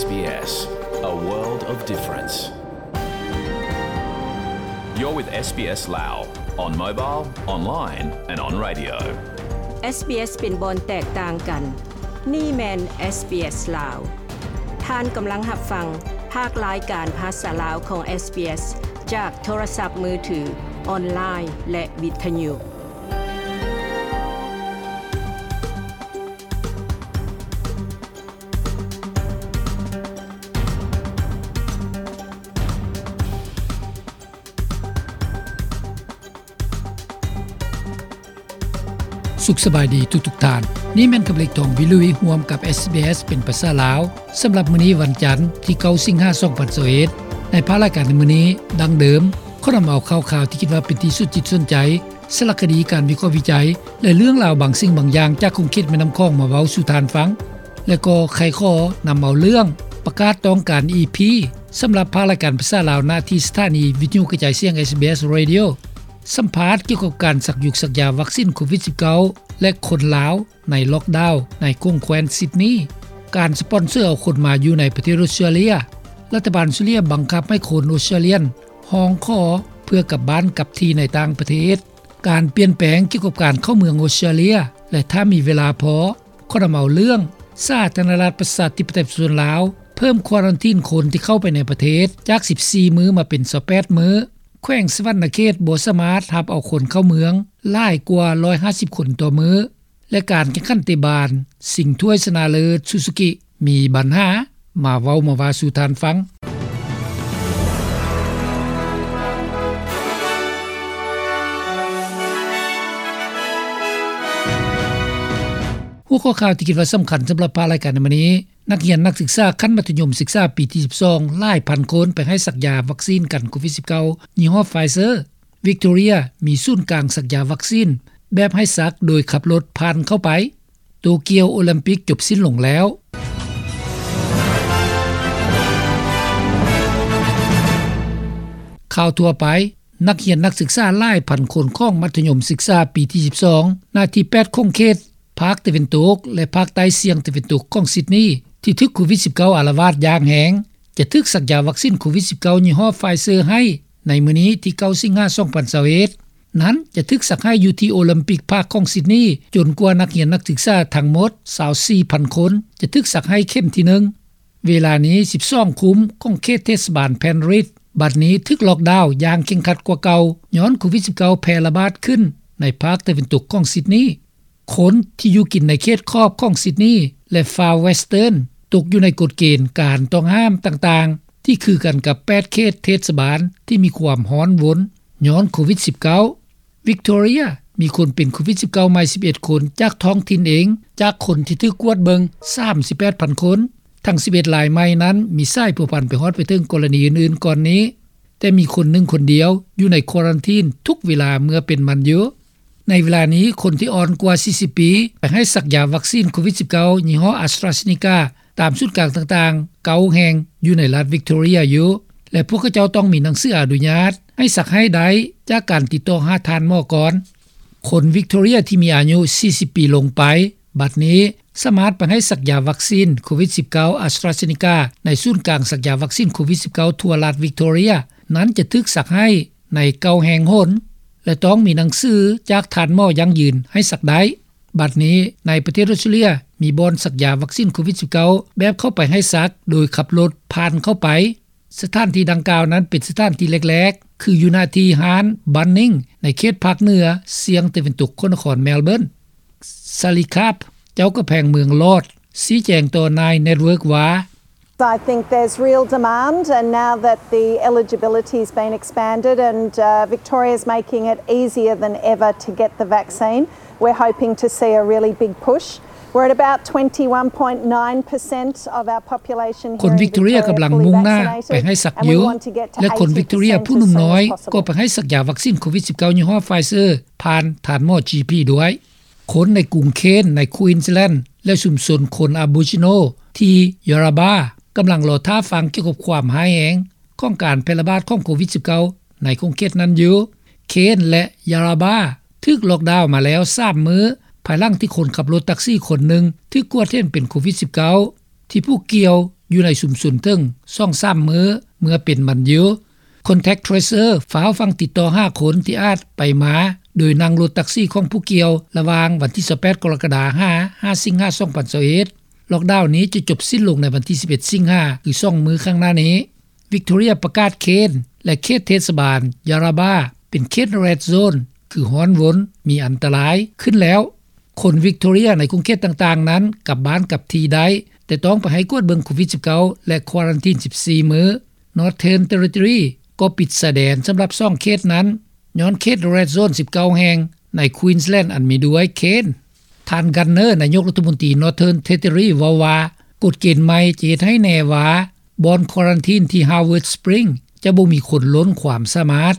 SBS, a world of difference. You're with SBS Lao on mobile, online and on radio. SBS ເປັນບ່ອນແຕກຕ່າງກັນ. ນີ້ແມ່ນ SBS ລາວ. ທ່ານກຳລັງຮັບຟັງພາກລາຍການພາສາລາວຂອງ SBS ຈາກໂທລະສັບມືຖື, ອອນລາຍ ແລະ ວິທະຍຸ. ສຸກສະບາຍດີທຸກໆທ່ານ. ນີ້ແມ່ນຄຳເລັກ ທອງວິລຸຍ ຮ່ວມກັບ SBS ເປັນພາສາລາວ. ສຳລັບມື້ນີ້ວັນຈັນ ທີເກົ້າ ສິງຫາ ສອງພັນຊາວເອັດ ໃນພາກລາຍການໃນມື້ນີ້ ດັ່ງເດີມ ຂໍນຳເອົາຂ່າວຄາວທີ່ຄິດວ່າເປັນທີ່ສົນຈິດສົນໃຈ, ສາລະຄະດີ, ການວິເຄາະວິໄຈ ແລະ ເລື່ອງລາວບາງສິ່ງບາງຢ່າງຈາກຂົງເຂດແມ່ນ້ຳຂອງມາເວົ້າສູ່ທ່ານຟັງ ແລະ ກໍໄຄຂໍນຳເອົາເລື່ອງປະກາດຕ້ອງການ ອີພີ ສຳລັບພາກລາຍການພາສາລາວ ນະທີ່ສະຖານີວິທະຍຸກະຈາຍສຽງ SBS Radio ສຳພາດກ່ຽວກັບການສັກຢຸກສັກຢາວັກຊີນໂຄວິດສິບເກົ້າ ແລະ ຄົນລາວໃນລັອກດາວໃນຂົງແຄວ້ນຊິດນີ, ການສະປອນເຊີເອົາຄົນມາຢູ່ໃນປະເທດອົດສະຕຣາເລຍ, ລັດຖະບານອົດສະຕຣາເລຍບັງຄັບໃຫ້ຄົນອົດສະຕຣາເລຍຮ້ອງຂໍເພື່ອກັບບ້ານກັບທີ່ໃນຕ່າງປະເທດ, ການປ່ຽນແປງກ່ຽວກັບການເຂົ້າເມືອງອົດສະຕຣາເລຍ ແລະ ຖ້າມີເວລາພໍ ຂໍນຳເອົາເລື່ອງສາທາລະນະລັດປະຊາທິປະໄຕປະຊາຊົນລາວ ເພີ່ມຄວາຣັນທີນຄົນທີ່ເຂົ້າໄປໃນປະເທດຈາກສິບສີ່ມື້ມາເປັນຊາວແປດມື້, ແຂວງສະຫວັນນະເຂດບໍ່ສາມາດຮັບເອົາຄົນເຂົ້າເມືອງຫຼາຍກວ່າຮ້ອຍຫ້າສິບຄົນຕໍ່ມື້ ແລະ ການແຂ່ງຂັນເຕະບານຊິງຖ້ວຍຊະນະເລີດຊູຊູກິມີບັນຫາ. ມາເວົ້າມາວ່າສູ່ທ່ານຟັງ. ຫົວຂໍ້ຂ່າວທີ່ຄິດວ່າສຳຄັນສຳລັບພາກລາຍການໃນມື້ນີ້, ນັກຮຽນນັກສຶກສາຂັ້ນມັດທະຍົມສຶກສາປີທີສິບສອງ ຫຼາຍພັນຄົນໄປໃຫ້ສັກຢາວັກຊີນກັນໂຄວິດສິບເກົ້າ ຍີ່ຫໍ້ Pfizer. ວິກໂຕເຣຍມີສູນກາງສັກຢາວັກຊີນແບບໃຫ້ສັກໂດຍຂັບລົດຜ່ານເຂົ້າໄປ. ໂຕກຽວໂອລິມປິກຈົບສິ້ນລົງແລ້ວ. ຂ່າວທົ່ວໄປ, ນັກຮຽນນັກສຶກສາຫຼາຍພັນຄົນຂອງມັດທະຍົມສຶກສາປີທີສິບສອງ ນະທີແປດຂົງເຂດ ພາກຕາເວັນຕົກ ແລະ ພາກໃຕ້ສ່ຽງຕາເວັນຕົກຂອງຊິດນີ ທີ່ຖືກໂຄວິດສິບເກົ້າອາລະວາດຢ່າງແຮງ ຈະຖືກສັກຢາວັກຊີນໂຄວິດສິບເກົ້າ ຍີ່ຫໍ້ Pfizer ໃຫ້ໃນມື້ນີ້ທີເກົ້າ ສິງຫາ ສອງພັນຊາວເອັດ ນັ້ນຈະຖືກສັກໃຫ້ຢູ່ທີ່ໂອລິມປິກພາກຂອງຊິດນີ ຈົນກວ່ານັກຮຽນນັກສຶກສາທັງໝົດຊາວສີ່ພັນຄົນຈະຖືກສັກໃຫ້ເຂັມທີໜຶ່ງ. ເວລານີ້ສິບສອງຄຸ້ມຂອງເຂດເທດສະບານ Penrith ບັດນີ້ຖືກລັອກດາວຢ່າງເຄັ່ງຄັດກວ່າເກົ່າ ຍ້ອນໂຄວິດສິບເກົ້າແຜ່ລະບາດຂຶ້ນໃນພາກຕາເວັນຕົກຂອງຊິດນີ. ຄົນທີ່ຢູ່ກິນໃນເຂດຂອບຂອງຊິດນີ ແລະ Far Western ຕົກຢູ່ໃນກົດເກນການຕ້ອງຫ້າມຕ່າງໆ ທີ່ຄືກັນກັບແປດເຂດເທດສະບານທີ່ມີຄວາມຮ້ອນວົນຍ້ອນໂຄວິດສິບເກົ້າ. ວິກໂຕເຣຍມີຄົນເປັນໂຄວິດສິບເກົ້າໃໝ່ສິບເອັດຄົນ ຈາກທ້ອງຖິ່ນເອງ ຈາກຄົນທີ່ຖືກກວດເບິ່ງສາມສິບແປດພັນຄົນ. ທັງສິບເອັດລາຍໃໝ່ນັ້ນມີສາຍພົວພັນໄປຮອດໄປເຖິງກໍລະນີອື່ນໆກ່ອນນີ້, ແຕ່ມີຄົນໜຶ່ງຄົນດຽວຢູ່ໃນຄວາຣັນທີນທຸກເວລາເມື່ອເປັນມັນຢູ່. ໃນເວລານີ້ ຄົນທີ່ອ່ອນກວ່າສີ່ສິບປີໄປໃຫ້ສັກຢາວັກຊີນໂຄວິດສິບເກົ້າ ຍີ່ຫໍ້ AstraZeneca ຕາມສູນກາງຕ່າງໆເກົ້າແຫ່ງຢູ່ໃນລັດວິກໂຕເຣຍຢູ່ ແລະ ພວກເຂົາເຈົ້າຕ້ອງມີໜັງສືອະນຸຍາດໃຫ້ສັກໃຫ້ໄດ້ຈາກການຕິດຕໍ່ຫາທ່ານໝໍກ່ອນ. ຄົນວິກໂຕເຣຍທີ່ມີອາຍຸສີ່ສິບປີລົງໄປ ບັດນີ້ສາມາດໄປໃຫ້ສັກຢາວັກຊີນໂຄວິດສິບເກົ້າ AstraZeneca ໃນສູນກາງສັກຢາວັກຊີນໂຄວິດສິບເກົ້າທົ່ວລັດວິກໂຕເຣຍ ນັ້ນຈະຖືກສັກໃຫ້ໃນເກົ້າແຫ່ງຫົນ ແລະ ຕ້ອງມີໜັງສືຈາກທ່ານໝໍຢັ້ງຢືນໃຫ້ສັກໄດ້. ບັດນີ້ໃນປະເທດອົດສະຕຣາເລຍມີບ່ອນສັກຢາວັກຊີນໂຄວິດສິບເກົ້າແບບເຂົ້າໄປໃຫ້ສັກໂດຍຂັບລົດຜ່ານເຂົ້າໄປ. ສະຖານທີ່ດັ່ງກ່າວນັ້ນເປັນສະຖານທີ່ແລກໆ ຄືຢູ່ໜ້າທີ່ຮ້ານ Bunnings ໃນເຂດພາກເໜືອສ່ຽງຕາເວັນຕົກຂອງນະຄອນ Melbourne. Sally Karp ເຈົ້າກຳແພງເມືອງ Lord ຊີ້ແຈງຕໍ່ Nine Network ວ່າ I think there's real demand, and now that the eligibility has been expanded and, uh, Victoria's making it easier than ever to get the vaccine, we're hoping to see a really big push. We're at about twenty-one point nine percent of our population here in Victoria fully vaccinated, and we want to get to eighty percent as soon as possible. ຄົນວິກໂຕເຣຍກຳລັງມຸ່ງໜ້າໄປໃຫ້ສັກຢູ່ ແລະ ຄົນວິກໂຕເຣຍຜູ້ໜຸ່ມນ້ອຍກໍໄປໃຫ້ສັກຢາວັກຊີນໂຄວິດສິບເກົ້າ ຍີ່ຫໍ້ Pfizer ຜ່ານທ່ານໝໍ GP ດ້ວຍ. ຄົນໃນກຸງເຄນ ໃນ Queensland ແລະ ຊຸມຊົນຄົນ Aboriginal ທີ່ Yarrabah ກຳລັງລໍຖ້າຟັງກ່ຽວກັບຄວາມຮ້າຍແຮງຂອງການແຜ່ລະບາດຂອງໂຄວິດສິບເກົ້າ ໃນຂົງເຂດນັ້ນຢູ່. ເຄນ ແລະ Yarrabah ຖືກລັອກດາວມາແລ້ວສາມມື້ ພາຍຫຼັງທີ່ຄົນຂັບລົດແທັກຊີຄົນໜຶ່ງຖືກກວດເຫັນເປັນໂຄວິດສິບເກົ້າ ທີ່ຜູ້ກ່ຽວ ຢູ່ໃນຊຸມຊົນເຖິງ ສອງສາມ ມື້ ເມື່ອເປັນມັນຢູ່. Contact Tracer ຟ້າວຟັງຕິດຕໍ່ຫາຄົນທີ່ອາດໄປມາໂດຍນັ່ງລົດແທັກຊີຂອງຜູ້ກ່ຽວ ລະຫວ່າງວັນທີ ຊາວແປດ ກໍລະກະດາ ຫາ ຫ້າ ສິງຫາ ສອງພັນຊາວເອັດ. ລ໊ອກດາວນີ້ຈະຈົບສິ້ນລົງໃນວັນທີ ສິບເອັດ ສິງຫາ ຄື ສອງ ມື້ຂ້າງໜ້ານີ້. Victoria ປະກາດເຂດ ແລະ ເຂດເທດສະບານ Yarrabah ເປັນເຂດ Red Zone ຄືຮ້ອນວົນ ມີອັນຕະລາຍ ຂຶ້ນແລ້ວ. ຄົນ Victoria ໃນຂົງເຂດຕ່າງໆນັ້ນ ກັບບ້ານກັບທີ່ໄດ້, ແຕ່ຕ້ອງໄປໃຫ້ກວດເບິ່ງໂຄວິດ-ສິບເກົ້າ ແລະ ຄວາຣັນທີນ ສິບສີ່ ມື້. Northern Territory ກໍປິດຊາຍແດນສຳລັບ ສອງ ເຂດນັ້ນ ຍ້ອນເຂດ Red Zone ສິບເກົ້າ ແຫ່ງໃນ Queensland ອັນມີດ້ວຍ Cairns. ທ່ານ Gunner ນາຍົກລັດຖະມົນຕີ Northern Territory ເວົ້າວ່າ ກົດເກນໃໝ່ຈະເຮັດໃຫ້ແນ່ວ່າ ບ່ອນຄວາຣັນທີນທີ່ Howard Springs ຈະບໍ່ມີຄົນລົ້ນຄວາມສາມາດ.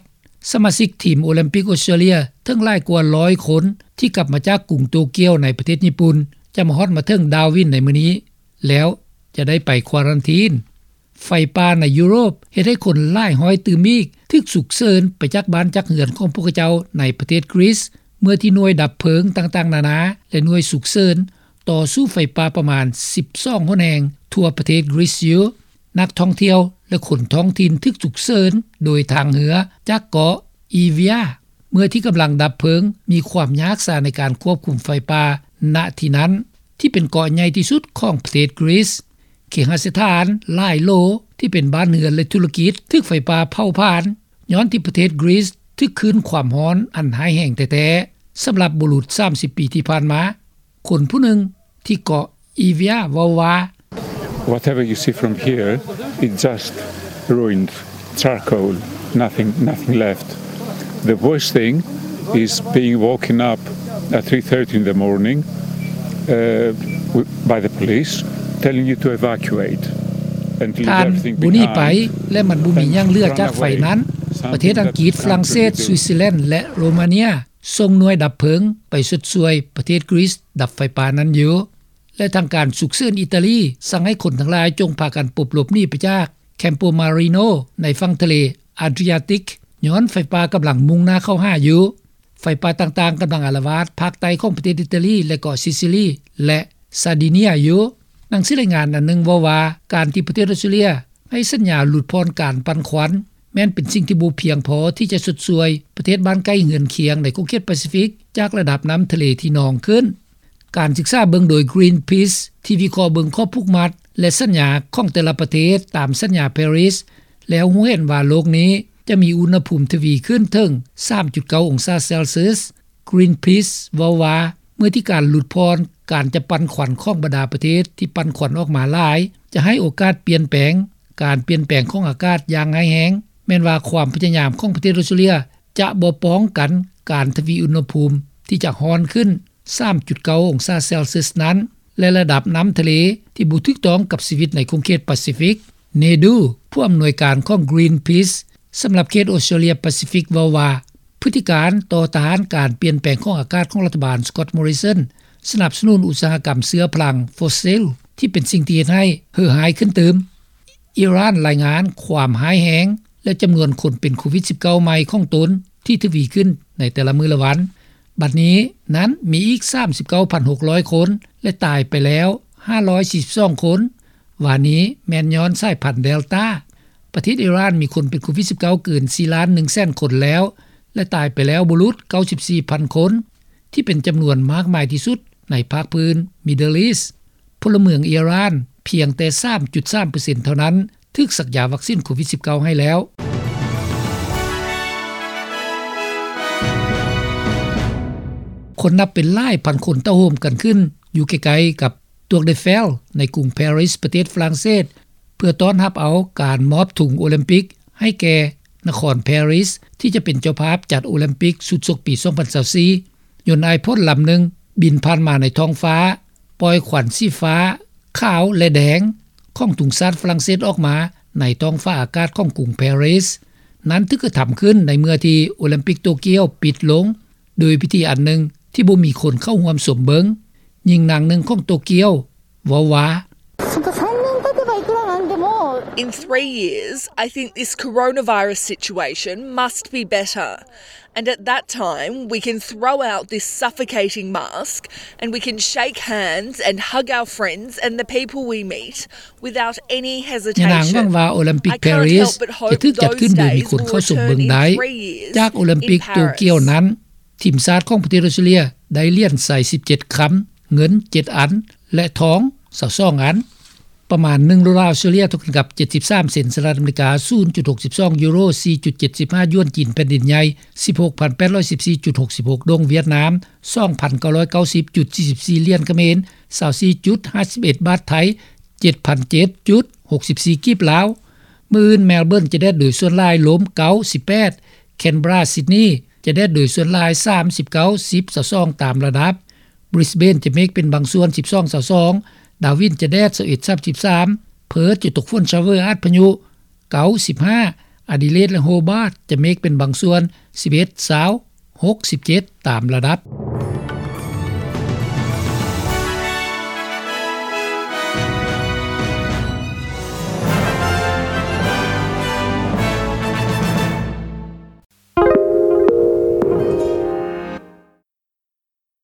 ສະມາຊິກທີມໂອລິມປິກອອສເຕຣເລັຽ ເຖິງຫຼາຍກວ່າ ຮ້ອຍ ຄົນ ທີ່ກັບມາຈາກກຸງໂຕກຽວໃນປະເທດຍີ່ປຸ່ນ ຈະມາຮອດມາເຖິງ Darwin ໃນມື້ນີ້ ແລ້ວຈະໄດ້ໄປຄວາຣັນທີນ. ໄຟປ່າໃນຢູໂຣບເຮັດໃຫ້ຄົນຫຼາຍຮ້ອຍຕື່ມອີກ ຖືກສຸກເສີນໄປຈາກບ້ານຈາກເຮືອນຂອງພວກເຂົາເຈົ້າໃນປະເທດ Greece ເມື່ອທີ່ໜ່ວຍດັບເພີງຕ່າງໆນານາ ແລະ ໜ່ວຍສຸກເສີນ ຕໍ່ສູ້ໄຟປ່າປະມານ ສິບສອງ ຫົນແຫ່ງທົ່ວປະເທດ Greece ຢູ່. ນັກທ່ອງທ່ຽວ ແລະ ຄົນທ້ອງຖິ່ນຖືກສຸກເສີນໂດຍທາງເຮືອຈາກເກາະ Evia ເມື່ອທີ່ກຳລັງດັບເພີງມີຄວາມຍາກສາໃນການຄວບຄຸມໄຟປ່າ ນະທີ່ນັ້ນ ທີ່ເປັນເກາະໃຫຍ່ທີ່ສຸດຂອງປະເທດ Greece. ເຄຫະສະຖານຫຼາຍໂຫຼ ທີ່ເປັນບ້ານເຮືອນ ແລະ ທຸລະກິດ ຖືກໄຟປ່າເຜົາຜານ ຍ້ອນທີ່ປະເທດ Greece ຖືກຄື້ນຄວາມຮ້ອນອັນຮ້າຍແຮງແທ້ໆ ສຳລັບບຸລຸດ ສາມສິບ ປີທີ່ຜ່ານມາ. ຄົນຜູ້ໜຶ່ງທີ່ເກາະ Evia ເວົ້າວ່າ Whatever you see from here, it's just ruined charcoal, nothing, nothing left. The worst thing is being woken up at three thirty in the morning, uh, w- by the police telling you to evacuate and leave ທ່ານ everything ບໍ່ໜີໄປ behind ແລະ ມັນບໍ່ມີຫຍັງເຫຼືອຈາກໄຟນັ້ນ. ປະເທດອັງກິດ, ຝຣັ່ງເສດ, ສວິດເຊີແລນ ແລະ ໂຣມາເນຍ ສົ່ງໜ່ວຍດັບເພີງໄປຊົດຊ່ວຍປະເທດ Greece ດັບໄຟປ່ານັ້ນຢູ່. ແລະ ທາງການສຸກເສີນອີຕາລີ ສັ່ງໃຫ້ຄົນທັງຫຼາຍຈົ່ງພາກັນປົບຫຼົບໜີໄປຈາກ Campomarino ໃນຝັ່ງທະເລ Adriatic ຍ້ອນໄຟປ່າກຳລັງມຸ່ງໜ້າເຂົ້າຫາຢູ່. ໄຟປ່າຕ່າງໆກຳລັງອາລະວາດພາກໃຕ້ຂອງປະເທດອີຕາລີ ແລະ ເກາະຊິຊິລີ ແລະ ຊາດີເນຍຢູ່. ໜັງສືລາຍງານອັນໜຶ່ງເວົ້າວ່າ ການທີ່ປະເທດອອສເຕຣເລັຽໃຫ້ສັນຍາຫຼຸດຜ່ອນການປັ່ນຄວັນ ແມ່ນເປັນສິ່ງທີ່ບໍ່ພຽງພໍທີ່ຈະຊົດຊ່ວຍປະເທດບ້ານໃກ້ເຮືອນຄຽງໃນຂົງເຂດປາຊີຟິກ ຈາກລະດັບນ້ຳທະເລທີ່ນອງຂຶ້ນ. ການສຶກສາເບິ່ງໂດຍ Greenpeace ທີ່ວິເຄາະເບິ່ງຂໍ້ຜູກມັດ ແລະ ສັນຍາຂອງແຕ່ລະປະເທດຕາມສັນຍາ Paris ແລ້ວຮູ້ເຫັນວ່າໂລກນີ້ຈະມີອຸນຫະພູມທະວີຂຶ້ນເຖິງ ສາມຈຸດເກົ້າ ອົງສາເຊລຊຽສ. Greenpeace ເວົ້າວ່າ ເມື່ອທີ່ການຫຼຸດຜ່ອນການຈະປັ່ນຄວັນຂອງບັນດາປະເທດທີ່ປັ່ນຄວັນອອກມາຫຼາຍ ຈະໃຫ້ໂອກາດປ່ຽນແປງ. ການປ່ຽນແປງຂອງອາກາດຢ່າງຮ້າຍແຮງ ແມ່ນວ່າຄວາມພະຍາຍາມຂອງປະເທດອອສເຕຣເລັຽຈະບໍ່ປ້ອງກັນການທະວີອຸນຫະພູມທີ່ຈະຮ້ອນຂຶ້ນ ສາມຈຸດເກົ້າ ອົງສາເຊລຊຽສນັ້ນ ແລະ ລະດັບນ້ຳທະເລທີ່ບໍ່ຖືກຕ້ອງກັບຊີວິດໃນຂົງເຂດປາຊີຟິກ. Nedu ຜູ້ອຳນວຍການຂອງ Greenpeace ສຳລັບເຂດອອສເຕຣເລັຽປາຊີຟິກ ເວົ້າວ່າ ພຶດຕິການຕໍ່ຕ້ານການປ່ຽນແປງຂອງອາກາດຂອງລັດຖະບານ Scott Morrison ສະໜັບສະໜູນອຸດສາຫະກຳເຊື້ອພະລັງຟອສຊິລ ທີ່ເປັນສິ່ງທີ່ເຮັດໃຫ້ເຫື່ອຮ້າຍຂຶ້ນຕື່ມ. ອີຣານລາຍງານຄວາມຮ້າຍແຮງ ແລະ ຈຳນວນຄົນເປັນໂຄວິດ-ສິບເກົ້າ ໃໝ່ຂອງຕົນທີ່ທະວີຂຶ້ນໃນແຕ່ລະມື້ລະວັນ. ບັດນີ້ນັ້ນມີອີກ ສາມສິບເກົ້າພັນຫົກຮ້ອຍຄົນ ແລະ ຕາຍໄປແລ້ວ ຫ້າຮ້ອຍສີ່ສິບສອງຄົນ. ວ່ານີ້ແມ່ນຍ້ອນສາຍພັນເດລຕາ. ປະເທດອີຣານມີຄົນເປັນໂຄວິດ-ສິບເກົ້າ ເກີນ ສີ່ລ້ານໜຶ່ງແສນຄົນແລ້ວ ແລະ ຕາຍໄປແລ້ວບໍ່ຫຼຸດ ເກົ້າສິບສີ່ພັນຄົນ ທີ່ເປັນຈຳນວນມາກມາຍທີ່ສຸດໃນພາກພື້ນ Middle East. ພົນລະເມືອງອີຣານພຽງແຕ່ ສາມຈຸດສາມເປີເຊັນ ເທົ່ານັ້ນ ຖືກສັກຢາວັກຊິນໂຄວິດ-ສິບເກົ້າ ໃຫ້ແລ້ວ. ຄົນນັບເປັນຫຼາຍພັນຄົນເຕົ້າໂຮມກັນຂຶ້ນຢູ່ໃກ້ໆກັບ Tour Eiffel ໃນກຸງ Paris ປະເທດຝຣັ່ງເສດ ເພື່ອຕ້ອນຮັບເອົາການມອບທຸງໂອລິມປິກໃຫ້ແກ່ນະຄອນ Paris ທີ່ຈະເປັນເຈົ້າພາບຈັດໂອລິມປິກຊຸດຊົກປີ ສອງພັນຊາວສີ່. ຍົນໄອພົດລຳໜຶ່ງບິນຜ່ານມາໃນທ້ອງຟ້າ, ປ່ອຍຄວັນສີຟ້າ, ຂາວ ແລະ ແດງຂອງທຸງຊາດຝຣັ່ງເສດອອກມາໃນທ້ອງຟ້າອາກາດຂອງກຸງ Paris. ນັ້ນຖືກກະທຳຂຶ້ນໃນເມື່ອທີ່ໂອລິມປິກໂຕກຽວປິດລົງ ໂດຍພິທີອັນໜຶ່ງທີ່ບໍ່ມີຄົນເຂົ້າຮ່ວມຊົມເບິ່ງ. ຍິງນາງໜຶ່ງຂອງໂຕກຽວເວົ້າວ່າ In three years, I think this coronavirus situation must be better. And at that time, we can throw out this suffocating mask and we can shake hands and hug our friends and the people we meet without any hesitation. ຍານາງຫວັງວ່າໂອລິມປິກ Paris ຈະຖືກຈັດຂຶ້ນໂດຍມີຄົນເຂົ້າຊົມເບິ່ງໄດ້. ຈາກໂອລິມປິກໂຕກຽວນັ້ນ ທີມຊາດຂອງປະເທດອອສເຕຣເລັຽ ໄດ້ຫຼຽນໄຊ ສິບເຈັດຄຳ, ເງິນ ເຈັດອັນ ແລະ ທອງ ຊາວສອງອັນ. ປະມານໜຶ່ງໂດລາອອສເຕຣເລັຽ ເທົ່າກັນກັບ ເຈັດສິບສາມເຊັນສະຫະລັດອາເມລິກາ, ສູນຈຸດຫົກສິບສອງຢູໂຣ, ສີ່ຈຸດເຈັດສິບຫ້າຢວນຈີນແຜ່ນດິນໃຫຍ່, ສິບຫົກພັນແປດຮ້ອຍສິບສີ່ຈຸດຫົກສິບຫົກດົງຫວຽດນາມ, ສອງພັນເກົ້າຮ້ອຍເກົ້າສິບຈຸດສີ່ສິບສີ່ຫຼຽນຂະເໝນ, ຊາວສີ່ຈຸດຫ້າສິບເອັດບາດໄທ, ເຈັດພັນເຈັດຈຸດຫົກສິບສີ່ກີບລາວ. ມື້ອື່ນ Melbourne ຈະແດດໂດຍສ່ວນຫຼາຍ, ລົມເກົ້າສິບແປດ, Canberra Sydney ຈະແດດໂດຍສ່ວນຫຼາຍ ສາມສິບເກົ້າ ສິບ ຊາວສອງຕາມລະດັບ. Brisbane ຈະເມກເປັນບາງສ່ວນ ສິບສອງ ຊາວສອງ, Darwin ຈະແດດ ຊາວເອັດ ສາມສິບສາມ, Perth ຈະຕົກຝົນ ຊາວເວີ ອາດພະຍຸ ເກົ້າສິບຫ້າ, Adelaide ແລະ Hobart ຈະເມກເປັນບາງສ່ວນ ສິບເອັດ ຊາວ ຫົກສິບເຈັດຕາມລະດັບ.